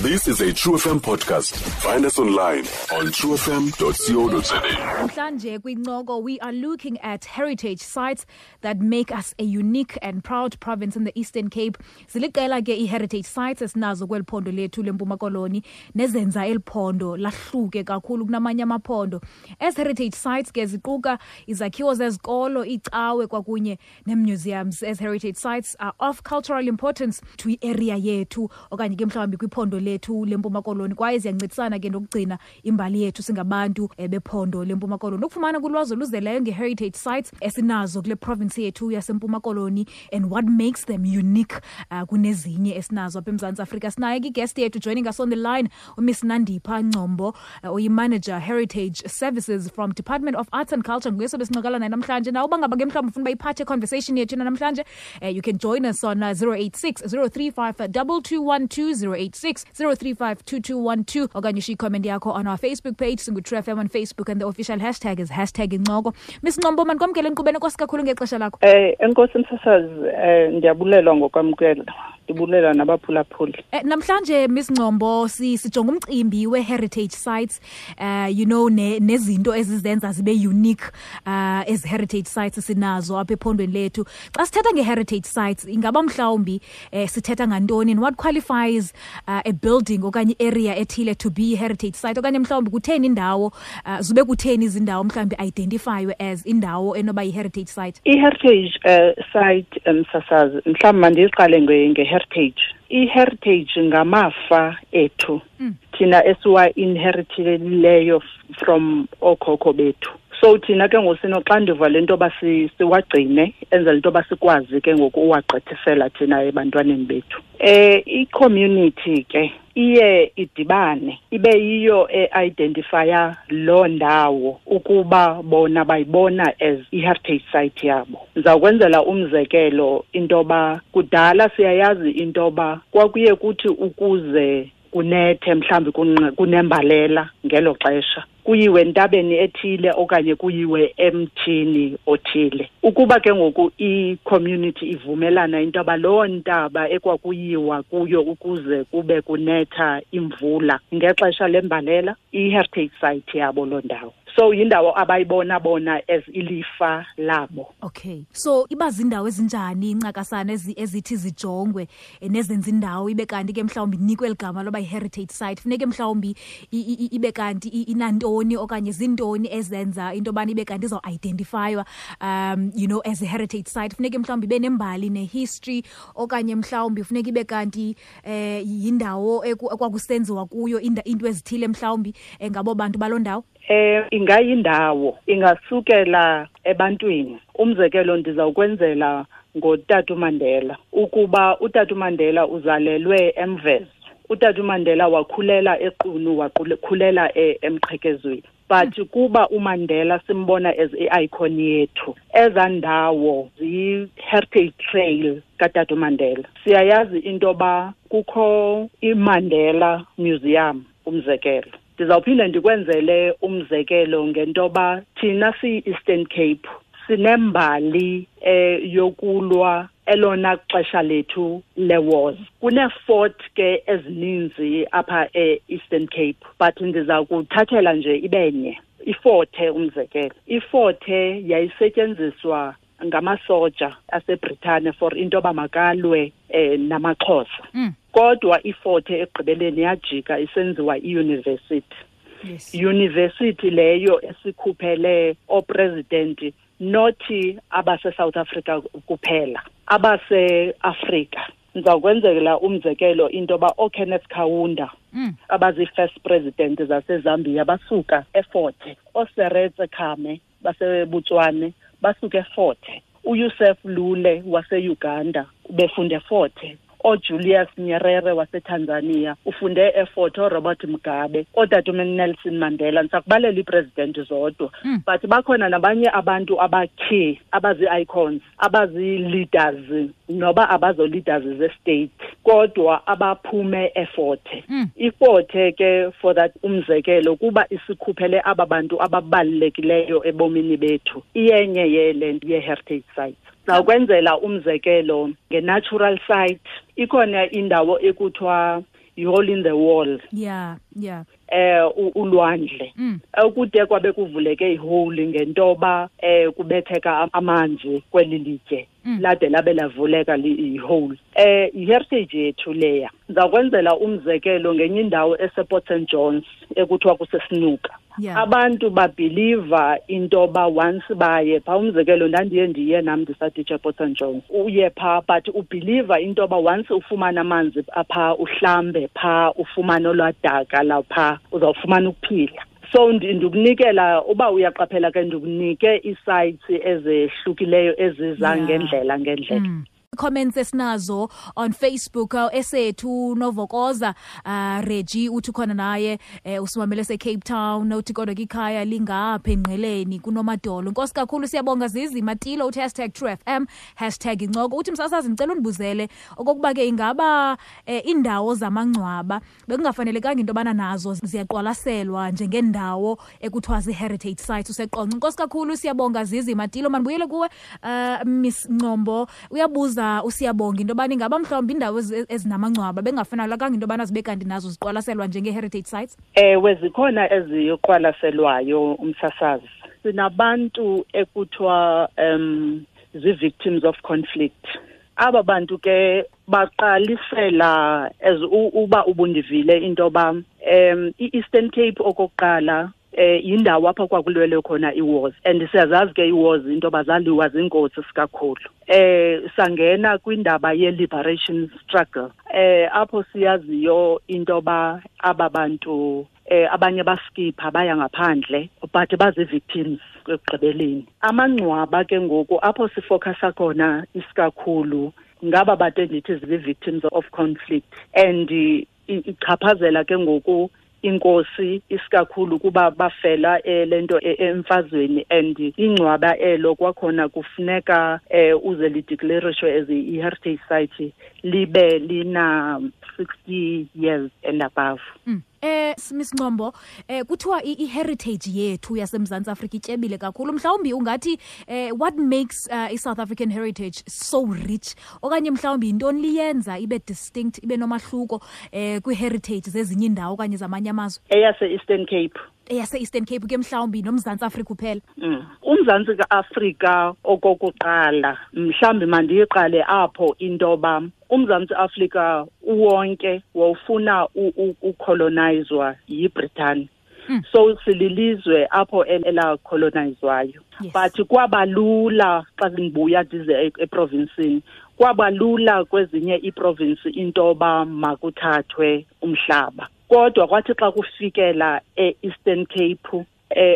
This is a True FM podcast. Find us online on truefm.co.za. Namhlanje kwincoko we are looking at heritage sites that make us a unique and proud province in the Eastern Cape. Ziliqela ke i-heritage sites esinazo kweli phondo lethu leMpuma Koloni nezenza eli phondo lahluke kakhulu kunamanye amaphondo. As heritage sites ke ziquka izakhiwo zezikolo, iicawe kwakunye nee-museums. As heritage sites are of cultural importance to i-area yethu okanye ke mhlawumbi kwiphondo lethu leMpuma Koloni, kwaye ziyancedisana ke nokugcina imbali yethu singabantu bephondo leMpuma Koloni. Ukufumana kulwazi oluzeleyo nge-heritage sites esinazo kule province yethu yaseMpuma Koloni and what makes them unique kunezinye esinazo apha eMzantsi Afrika, sinaye ke i-guest yethu joining us on the line, uMiss Nandipha Ngcombo, oyi-manager heritage services from Department of Arts and Culture. Nguye sobe sincokola naye namhlanje. Nawe uba ngaba ke mhlawumbi ufuna uba iphathe conversation yethu namhlanje, you can join us on 086 035 2212, 086 035 2212, okanye ushiye i-comment yakho on our Facebook page. Singu-True FM on Facebook and the official hashtag is #incoko. Miss Ngcombo, mandikwamkele enkqubeni. Enkosi kakhulu ngexesha lakho. Enkosi msasazi, ndiyabulelwa ngokwamkela. Ndibulela nabaphulaphuli. Namhlanje Miss Ngcombo sijonga umcimbi we-heritage sites, nezinto ezizenza zibe unique as heritage sites sinazo apha ephondweni lethu. Xa sithetha nge-heritage sites, ingaba mhlawumbi sithetha ngantoni, and what qualifies a building okanye area ethile to be heritage site, okanye mhlawumbi kutheni indawo zube kutheni izindawo mhlawumbi identifywe as indawo enoba yi-heritage site? I-heritage site, msasazi, mhlawumbi mandiyiqale nge-heritage. I-heritage ngamafa ethu thina esiwa-inheritileyo from ookhokho bethu. So thina ke ngoku sinoxanduva lento yoba siwagcine, enzela into yoba sikwazi ke ngoku uwagqithisela thina ebantwaneni bethu. I-community ke iye idibane ibe yiyo e-identifya loo ndawo ukuba bona bayibona as i-heritage site yabo. Ndizawukwenzela umzekelo into yoba kudala siyayazi into yoba kwakuye kuthi ukuze kunethe, mhlawumbi kunembalela ngelo xesha, kuyiwe entabeni ethile okanye kuyiwe emthini othile. Ukuba ke ngoku i-community ivumelana into yoba loo ntaba ekwakuyiwa kuyo ukuze kube kunetha imvula ngexesha lembalela, i-heritage site yabo loo ndawo. So yindawo abayibona bona as ilifa labo. Okay, so iba zindawo ezinjani incakasana ezithi zijongwe nezenza indawo ibe kanti ke mhlawumbi inikwe eli gama loba yi-heritage site? Funeke mhlawumbi ibe kanti inantoni okanye zintoni ezenza into yobana ibe kanti izawu-identifywa as a heritage site? Funeke mhlawumbi ibe nembali ne-history, okanye mhlawumbi funeke ibe kanti yindawo ekwakusenziwa kuyo into ezithile mhlawumbi ngabo bantu baloo ndawo? Ingayindawo ingasukela ebantwini. Umzekelo ndizawukwenzela ngotata uMandela, ukuba utata uMandela uzalelwe eMvezo. Utata uMandela wakhulela eQunu, wakhulela eMqhekezweni. But kuba uMandela simbona as i-icon yethu, ezaa ndawo ziyi-heritage trail katata uMandela. Siyayazi into yoba kukho iMandela Museum, umzekelo. Ndizawuphinda ndikwenzele umzekelo ngento yoba thina siyi-Eastern Cape sinembali yokulwa elona xesha lethu le-wars. Kunee-fort ke ezininzi apha e-Eastern Cape, but ndiza kuthathela nje ibenye. Ifort, umzekelo. Ifort yayisetyenziswa ngamasoja aseBritane for into yoba makalwe namaXhosa. Kodwa ifort ekugqibeleni yajika isenziwa i-university. University leyo esikhuphele oopresident, nothi abase-South Africa kuphela, abase-Afrika. Ndizawukwenzela umzekelo into yoba ooKenneth Kaunda, abazi-first president zaseZambia, basuka eFort. OoSeretse Khame baseBotswana basuka eFort. uYusuf Lule wase-Uganda befunde eFort. OoJulius Nyerere waseTanzania ufunde eFort. OoRobert Mugabe, ootata Nelson Mandela, ndisakubalela iipresident zodwa. But bakhona nabanye abantu abakey, abazi-icons, abazi-leaders, noba abazo-leaders ze-state, kodwa abaphume eFort. IFort ke for that umzekelo, kuba isikhuphele aba bantu ababalulekileyo ebomini bethu, iyenye yele ye-heritage sites. Nawukwenzela umzekelo nge-natural site, ikhona indawo ekuthiwa yi-hole in the wall. Yeah. Ulwandle. Ukude kwabe kuvuleke ihole ngentoba kubetheka amanzi kweli litye. Lade labe lavuleka ihole. I-heritage yethu leya. Ndizakwenzela umzekelo ngenye indawo esePort St Johns ekuthiwa kuseSinuka. Abantu babhiliva into ba once baye pha, umzekelo ndandiye ndiye nam ndisatitsha ePort St Johns, uye pha but ubhiliva into ba once ufumana amanzi apha, uhlambe pha, ufumane olwadaka lapha, uzawufumana ukuphila. So ndikunikela uba uyaqaphela ke, ndikunike ii-sites ezehlukileyo eziza ngendlela ngendlela. Comments esinazo on Facebook, esethu Novokoza, Reggie uthi khona naye usimamele se Cape Town, uthi kodwa ke ikhaya lingapha engqeleni kunomadolo. Nkosi kakhulu, siyabonga Zizi Matilo. Uthi #TrueFM #Incoko. Uthi msasazi, ndicela undibuzele okokuba ke ingaba indawo zamangcwaba bekungafanelekanga into yobana nazo ziyaqwalaselwa njengendawo ekuthiwa zii-heritage sites. Useqonce. Nkosi kakhulu, siyabonga Zizi Matilo. Mandibuyele kuwe, Miss Ncombo. Uyabuza usiyabonga into yobana ingaba mhlawumbi indawo ezinamangcwaba bengafanelekanga into yobana zibe kanti nazo ziqwalaselwa njenge-heritage sites? Ewe, zikhona eziqwalaselwayo, umsasazi. Sinabantu ekuthiwa zii-victims of conflict. Aba bantu ke baqalisela as uba ubundivile into yoba i-Eastern Cape okokuqala yindawo apha kwakulwelwe khona ii-wars, and siyazazi ke ii-wars into yoba zaliwa ziinkosi kakhulu. Sangena kwindaba ye-liberation struggle, apho siyaziyo into yoba aba bantu abanye baskipha baya ngaphandle, but bazi-victims ekugqibeleni. Amangcwaba ke ngoku apho sifokhasa khona isikakhulu ngaba bantu endithi zii-victims of conflict, and ichaphazela ke ngoku inkosi isikakhulu kuba bafela lento emfazweni, and ingcwaba elo kwakhona kufuneka uze lideclarishwe as i-heritage site libe lina 60 years and above. Miss Ncombo, kuthiwa i-heritage yethu yaseMzantsi Afrika ityebile kakhulu. Mhlawumbi ungathi what makes i-South African heritage so rich, okanye mhlawumbi yintoni liyenza ibe distinct, ibe nomahluko kwi-heritage zezinye iindawo okanye zamanye amazwe? Eyase-Eastern Cape. Eyase-Eastern Cape ke mhlawumbi noMzantsi Afrika uphela. UMzantsi Afrika okokuqala, mhlawumbi mandiyiqale apho into yoba uMzantsi Afrika uwonke wawufuna ucolonizwa yiBritani. So sililizwe apho elacolonizwayo. But kwabalula xa ndibuya ndize eprovinsini, kwabalula kwezinye iiprovinsi into yoba makuthathwe umhlaba. Kodwa kwathi xa kufikela e-Eastern Cape,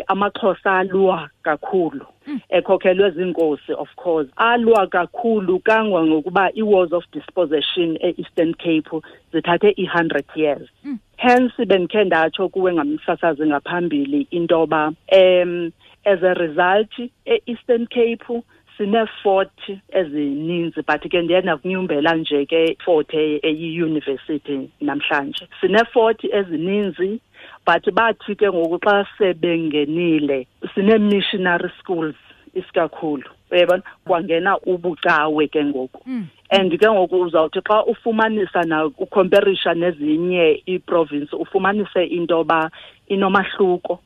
amaXhosa alwa kakhulu, ekhokhelwe ziinkosi of course, alwa kakhulu kangangokuba ii-wars of dispossession e-Eastern Cape zithathe i-100 years. Hence bendikhe ndatsho kuwe ngamsasazi ngaphambili into yoba as a result e-Eastern Cape sine-fort ezininzi, but ke ndiye ndakunyumbela nje ke fort eyi-university namhlanje. Sine-fort ezininzi, but bathi ke ngoku xa sebengenile sine-missionary schools isikakhulu, uyabona, kwangena ubucawe ke ngoku. And ke ngoku uzawuthi xa ufumanisa na ucomparisha nezinye ii-province, ufumanise into yoba inomahluko.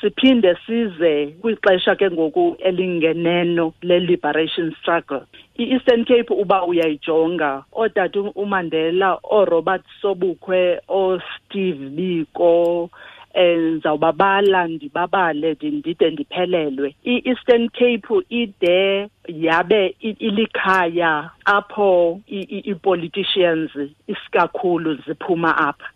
Siphinde size kwixesha ke ngoku elingeneno le-liberation struggle. I-Eastern Cape uba uyayijonga, ootata uMandela, ooRobert Sobukwe, ooSteve Biko, ndizawubabala ndibabale ndide ndiphelelwe. I-Eastern Cape ide yabe ilikhaya apho i-politicians isikakhulu ziphuma apha.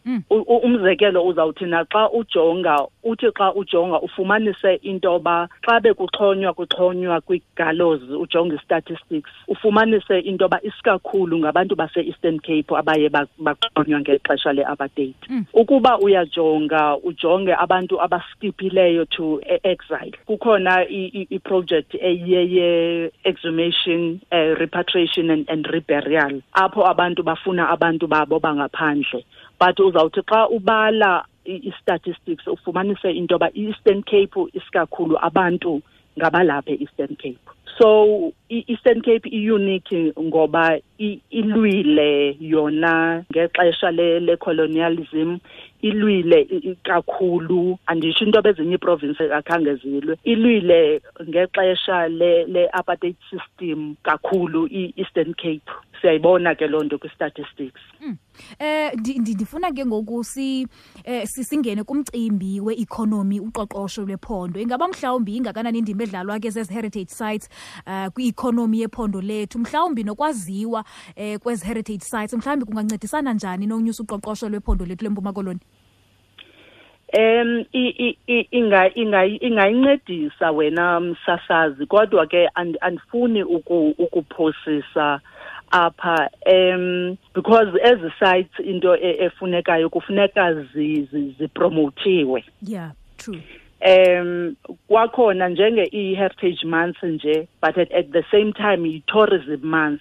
Umzekelo uzawuthi naxa ujonga, uthi xa ujonga ufumanise into yoba xa bekuxhonywa, kuxhonywa kwi-gallows, ujonge i-statistics, ufumanise into yoba isikakhulu ngabantu base-Eastern Cape abaye baxhonywa ngexesha le-apartheid. Ukuba uyajonga, ujonge abantu abaskipileyo to exile, kukhona i-project eyeye exhumation, repatriation and reburial, apho abantu bafuna abantu babo bangaphandle. But uzawuthi xa ubala i-statistics ufumanise into yoba i-Eastern Cape isikakhulu abantu ngabalapha e-Eastern Cape. So i-Eastern Cape i-unique ngoba ilwile yona ngexesha le-colonialism, ilwile kakhulu. Andisho into bezinye iiprovince akhange zilwe, ilwile ngexesha le-apartheid system kakhulu i-Eastern Cape. Siyayibona ke loo nto kwi-statistics. Ndifuna ke ngoku singene kumcimbi we-economy, uqoqosho lwephondo. Ingaba mhlawumbi ingakanani indima edlalwa ke zezi heritage sites kwi-economy yephondo lethu, mhlawumbi nokwaziwa kwezi heritage sites, mhlawumbi kungancedisana njani nonyusa uqoqosho lwephondo lethu leMpuma Koloni? Ingayincedisa wena msasazi, kodwa ke andifuni ukuphosisa apha, because ezi sites into efunekayo kufuneka zipromotiwe. Yeah, true. Kwakhona njenge i-Heritage Month nje, but at the same time i-Tourism Month.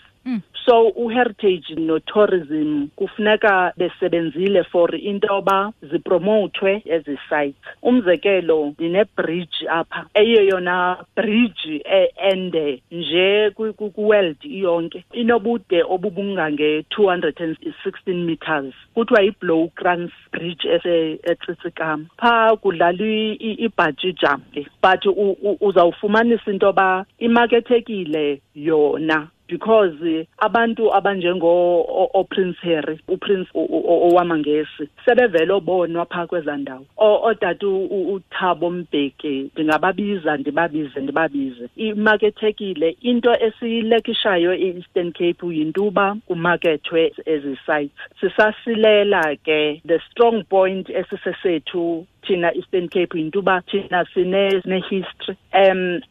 So u-heritage no-tourism kufuneka besebenzile for into yoba zipromotwe ezi sites. Umzekelo, ndine-bridge apha, eyeyona bridge ende nje kwi-world iyonke, inobude obubungange-216 meters. Kuthiwa yi-Bloukrans Bridge eTsitsikamma. Phaa kudlalwa i-bungee jump, but uzawufumanisa into yoba imakethekile yona, because abantu abanjengo oPrince Harry, uPrince owamaNgesi, sebevele obonwa phaa kwezaa ndawo. Ootata uThabo Mbeki, ndingababiza, ndibabize, ndibabize. Imakethekile. Into esiyilekishayo e-Eastern Cape yinto uba kumakethwe ezi sites. Sisasilela ke. The strong point esisesethu thina Eastern Cape yinto uba thina sine-history.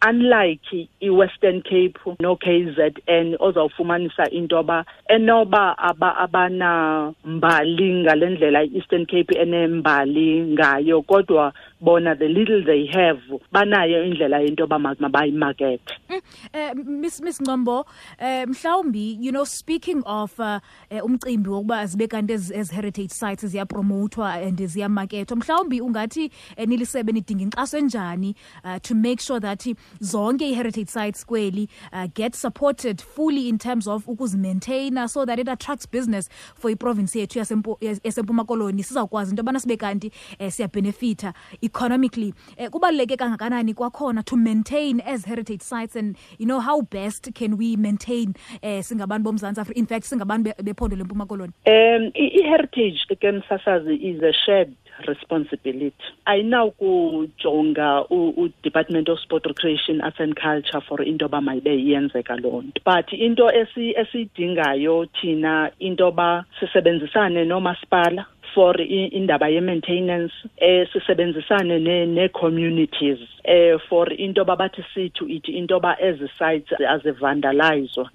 Unlike i-Western Cape no-KZN, ozawufumanisa into yoba enoba abanambali ngale ndlela i-Eastern Cape enembali ngayo, kodwa bona the little they have banayo indlela yento yoba mabayimakethe. Miss Ngcombo, mhlawumbi, speaking of umcimbi wokuba zibe kanti ezi heritage sites ziyapromotwa and ziyamakethwa, mhlawumbi ungathi nilisebe nidinga inkxaso enjani to make sure that zonke i-heritage sites kweli get supported fully in terms of ukuzimaintaina so that it attracts business for iprovince yethu yaseMpuma Koloni, sizawukwazi into yobana sibe kanti siyabenefitha economically? Kubaluleke kangakanani kwakhona to maintain as heritage sites, and how best can we maintain singabantu boMzantsi Afrika, in fact singabantu bephondo leMpuma Koloni? I-heritage ke, msasazi, is a shared responsibility. Ayinawukujonga u-Department of Sport, Recreation, Arts and Culture for into yoba mayibe iyenzeka loo nto, but into esiyidingayo thina into yoba sisebenzisane noomasipala for indaba ye-maintenance, sisebenzisane nee-communities for into yoba bathi sithu ithi into yoba ezi sites azivandalizwa.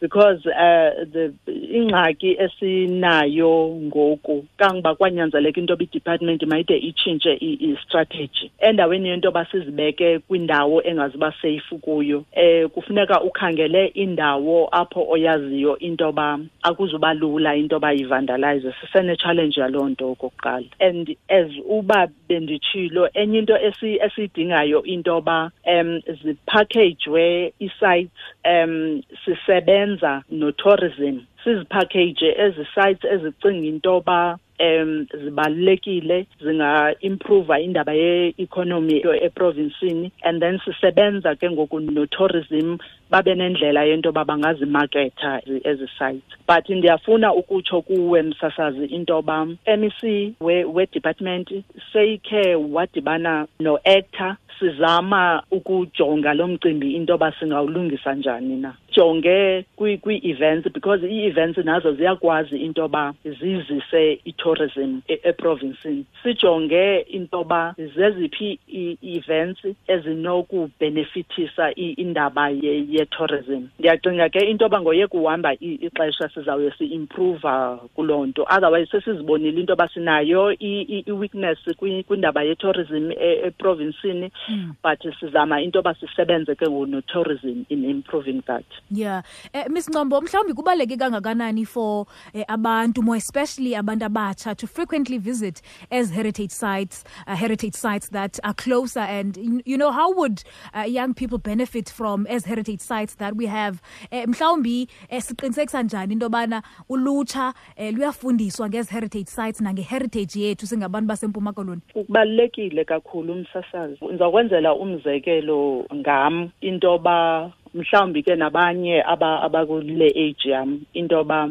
Because the ingxaki esinayo ngoku kangoba kwanyanzeleka into yoba i-department mayide itshintshe i-strategy endaweni yento yoba sizibeke kwindawo engazuba safe kuyo, kufuneka ukhangele indawo apho oyaziyo into yoba akuzuba lula into yoba ivandalize. Sisene-challenge yaloo nto okokuqala. And as uba benditshilo, enye into esiyidingayo into yoba zipackagwe ii-sites, sisebenza no-tourism, sizipackage ezi sites ezicinga into yoba zibalulekile, zinga-improva indaba ye-economy eprovinsini, and then sisebenza ke ngoku no-tourism babe nendlela yento yoba bangazimaketha ezi sites. But ndiyafuna ukutsho kuwe, msasazi, into yoba MEC we-department seyikhe wadibana no-actor, sizama ukujonga lo mcimbi into yoba singawulungisa njani na, jonge kwii-events, because ii-events nazo ziyakwazi into yoba zizise i-tourism eprovinsini. Sijonge into yoba zeziphi ii-events ezinokubhenefithisa indaba ye-tourism. Ndiyacinga ke into yoba ngoye kuhamba ixesha sizawuye si-improva kuloo nto. Otherwise sesizibonile into yoba sinayo i-weakness kwindaba ye-tourism eprovinsini. But sizama into yoba sisebenze ke ngoku no-tourism in improving that. Yeah. Miss Ngcombo, mhlawumbi kubaluleke kangakanani for abantu, more especially abantu abatsha, to frequently visit as heritage sites that are closer, and how would young people benefit from as heritage sites that we have? Mhlawumbi siqinisekisa njani into yobana ulutsha luyafundiswa ngezi heritage sites nange-heritage yethu singabantu baseMpuma Koloni? Kubalulekile kakhulu, umsasazi. Ndizakwenzela umzekelo ngam, into yoba mhlawumbi ke nabanye abakule age yam, into yoba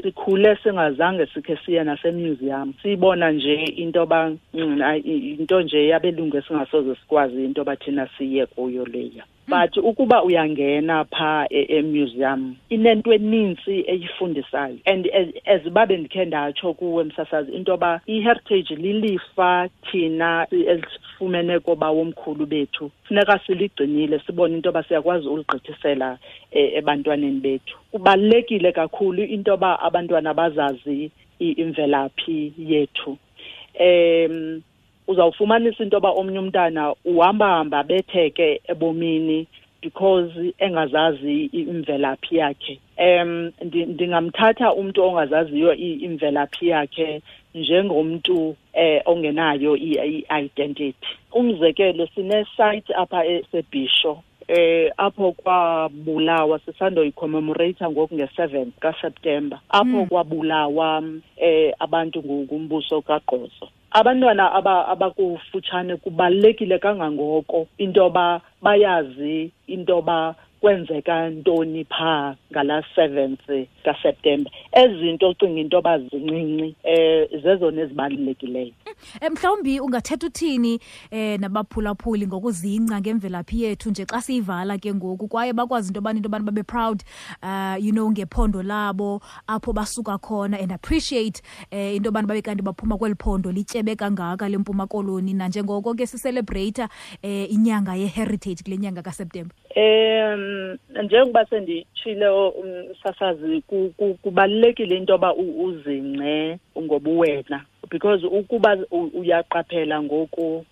sikhule singazange sikhe siye nasemuseum, siyibona nje into yoba into nje yabelungu esingasoze sikwazi into yoba thina siye kuyo leya. But ukuba uyangena pha emuseum, inento enintsi eyifundisayo. And as uba bendikhe ndatsho kuwe, msasazi, into yoba i-heritage lilifa thina esifumene koobawomkhulu bethu, funeka siligcinile, sibone into yoba siyakwazi uligqithisela ebantwaneni bethu. Kubalulekile kakhulu into yoba abantwana bazazi imvelaphi yethu. Uzawufumanisa into yoba omnye umntana uhamba-hamba betheke ebomini because engazazi imvelaphi yakhe. Ndingamthatha umntu ongazaziyo imvelaphi yakhe njengomntu ongenayo i-identity. Umzekelo, sine-site apha eseBhisho, apho kwabulawa, sisandoyicommemorate ngoku nge-7 kaSeptemba, apho kwabulawa abantu ngumbuso kaGqozo. Abantwana abakufutshane kubalulekile kangangoko into yoba bayazi into yoba kwenzeka ntoni phaa ngala 7th kaSeptemba. Ezi zinto ocinga into yoba zincinci, zezona ezibalulekileyo. Mhlawumbi ungathetha uthini nabaphulaphuli ngokuzingca ngemvelaphi yethu nje xa siyivala ke ngoku, kwaye bakwazi into yobana babe proud ngephondo labo, apho basuka khona, and appreciate into yobana babe kanti baphuma kweli phondo lityebe kangaka leMpuma Koloni, nanjengoko ke sicelebrate inyanga ye-heritage kule nyanga kaSeptemba? Njengoba senditshile, umsasazi, kubalulekile into yoba uzingce ngobuwena, because ukuba uyaqaphela ngoku,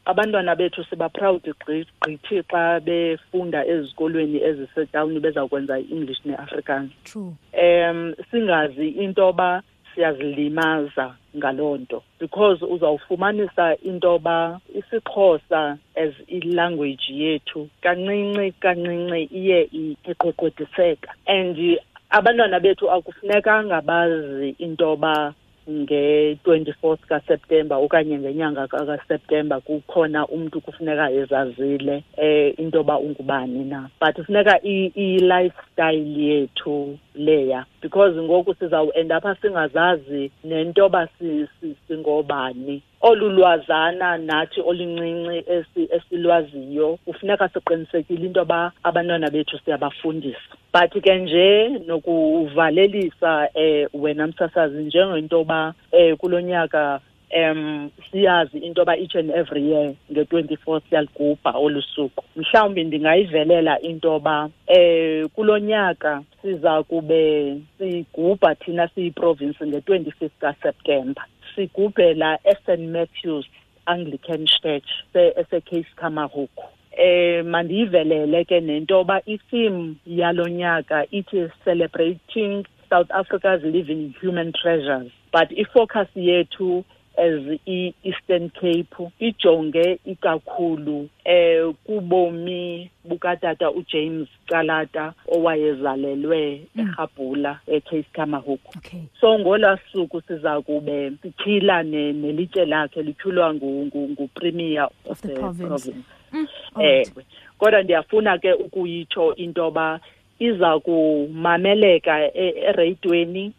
abantwana bethu siba proud gqithi xa befunda ezikolweni ezisetawuni bezawukwenza i-English ne-Afrikaans. Singazi into yoba siyazilimaza ngaloo nto, because uzawufumanisa into yoba isiXhosa as i-language yethu kancinci kancinci iye iqweqwediseka, and abantwana bethu akufunekanga bazi into yoba nge-24th kaSeptemba okanye ngenyanga kaSeptemba kukhona umntu kufuneka ezazile into yoba ungubani na, but kufuneka i-lifestyle yethu leya, because ngoku sizawuend apha singazazi nento yoba singobani. Olu lwazana nathi oluncinci esilwaziyo kufuneka siqinisekile into yoba abantwana bethu siyabafundisa. But ke nje nokuvalelisa, wena msasazi, njengento yoba kulo nyaka siyazi into yoba each and every year nge-24 siyaligubha olu suku, mhlawumbi ndingayivelela into yoba kulo nyaka siza kube sigubha thina siyiprovinsi nge-25 kaSeptemba, sigubhela eSt Matthews Anglican Church eseKeiskammahoek. Mandiyivelele ke nento yoba i-theme yalo nyaka ithi "Celebrating South Africa's Living Human Treasures", but ifocus yethu as i-Eastern Cape ijonge ikakhulu kubomi bukatata uJames Calata owayezalelwe eRhabhula eKeiskammahoek. So ngolaa suku siza kube sityhila nelitye lakhe, lityhilwa ngupremier of the province. Province. Ewe, kodwa ndiyafuna ke ukuyitsho into yoba iza kumameleka ereyidweni,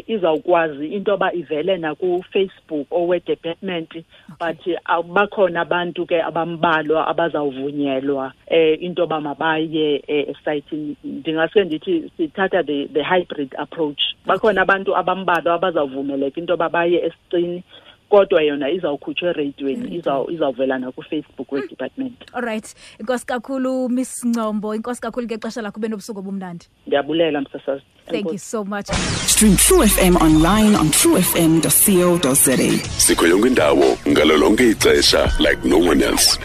izawukwazi into yoba ivele naku-Facebook owe-department, but bakhona abantu ke abambalwa abazawuvunyelwa into yoba mabaye esayithini. Ndingasuke ndithi sithatha the hybrid approach. Bakhona abantu abambalwa abazawuvumeleka into yoba baye esicini, Kodwa yona izawukhutshwa ereyidweni, izawuvela nakufacebook wedepartment. Alright, inkosi kakhulu, Miss Ngcombo, inkosi kakhulu ngexesha lakho, ube nobusuku obumnandi. Ndiyabulela, msasazi. Thank you so much. Stream True FM online on truefm.co.za. Sikho yonke indawo ngalo lonke ixesha like no one else.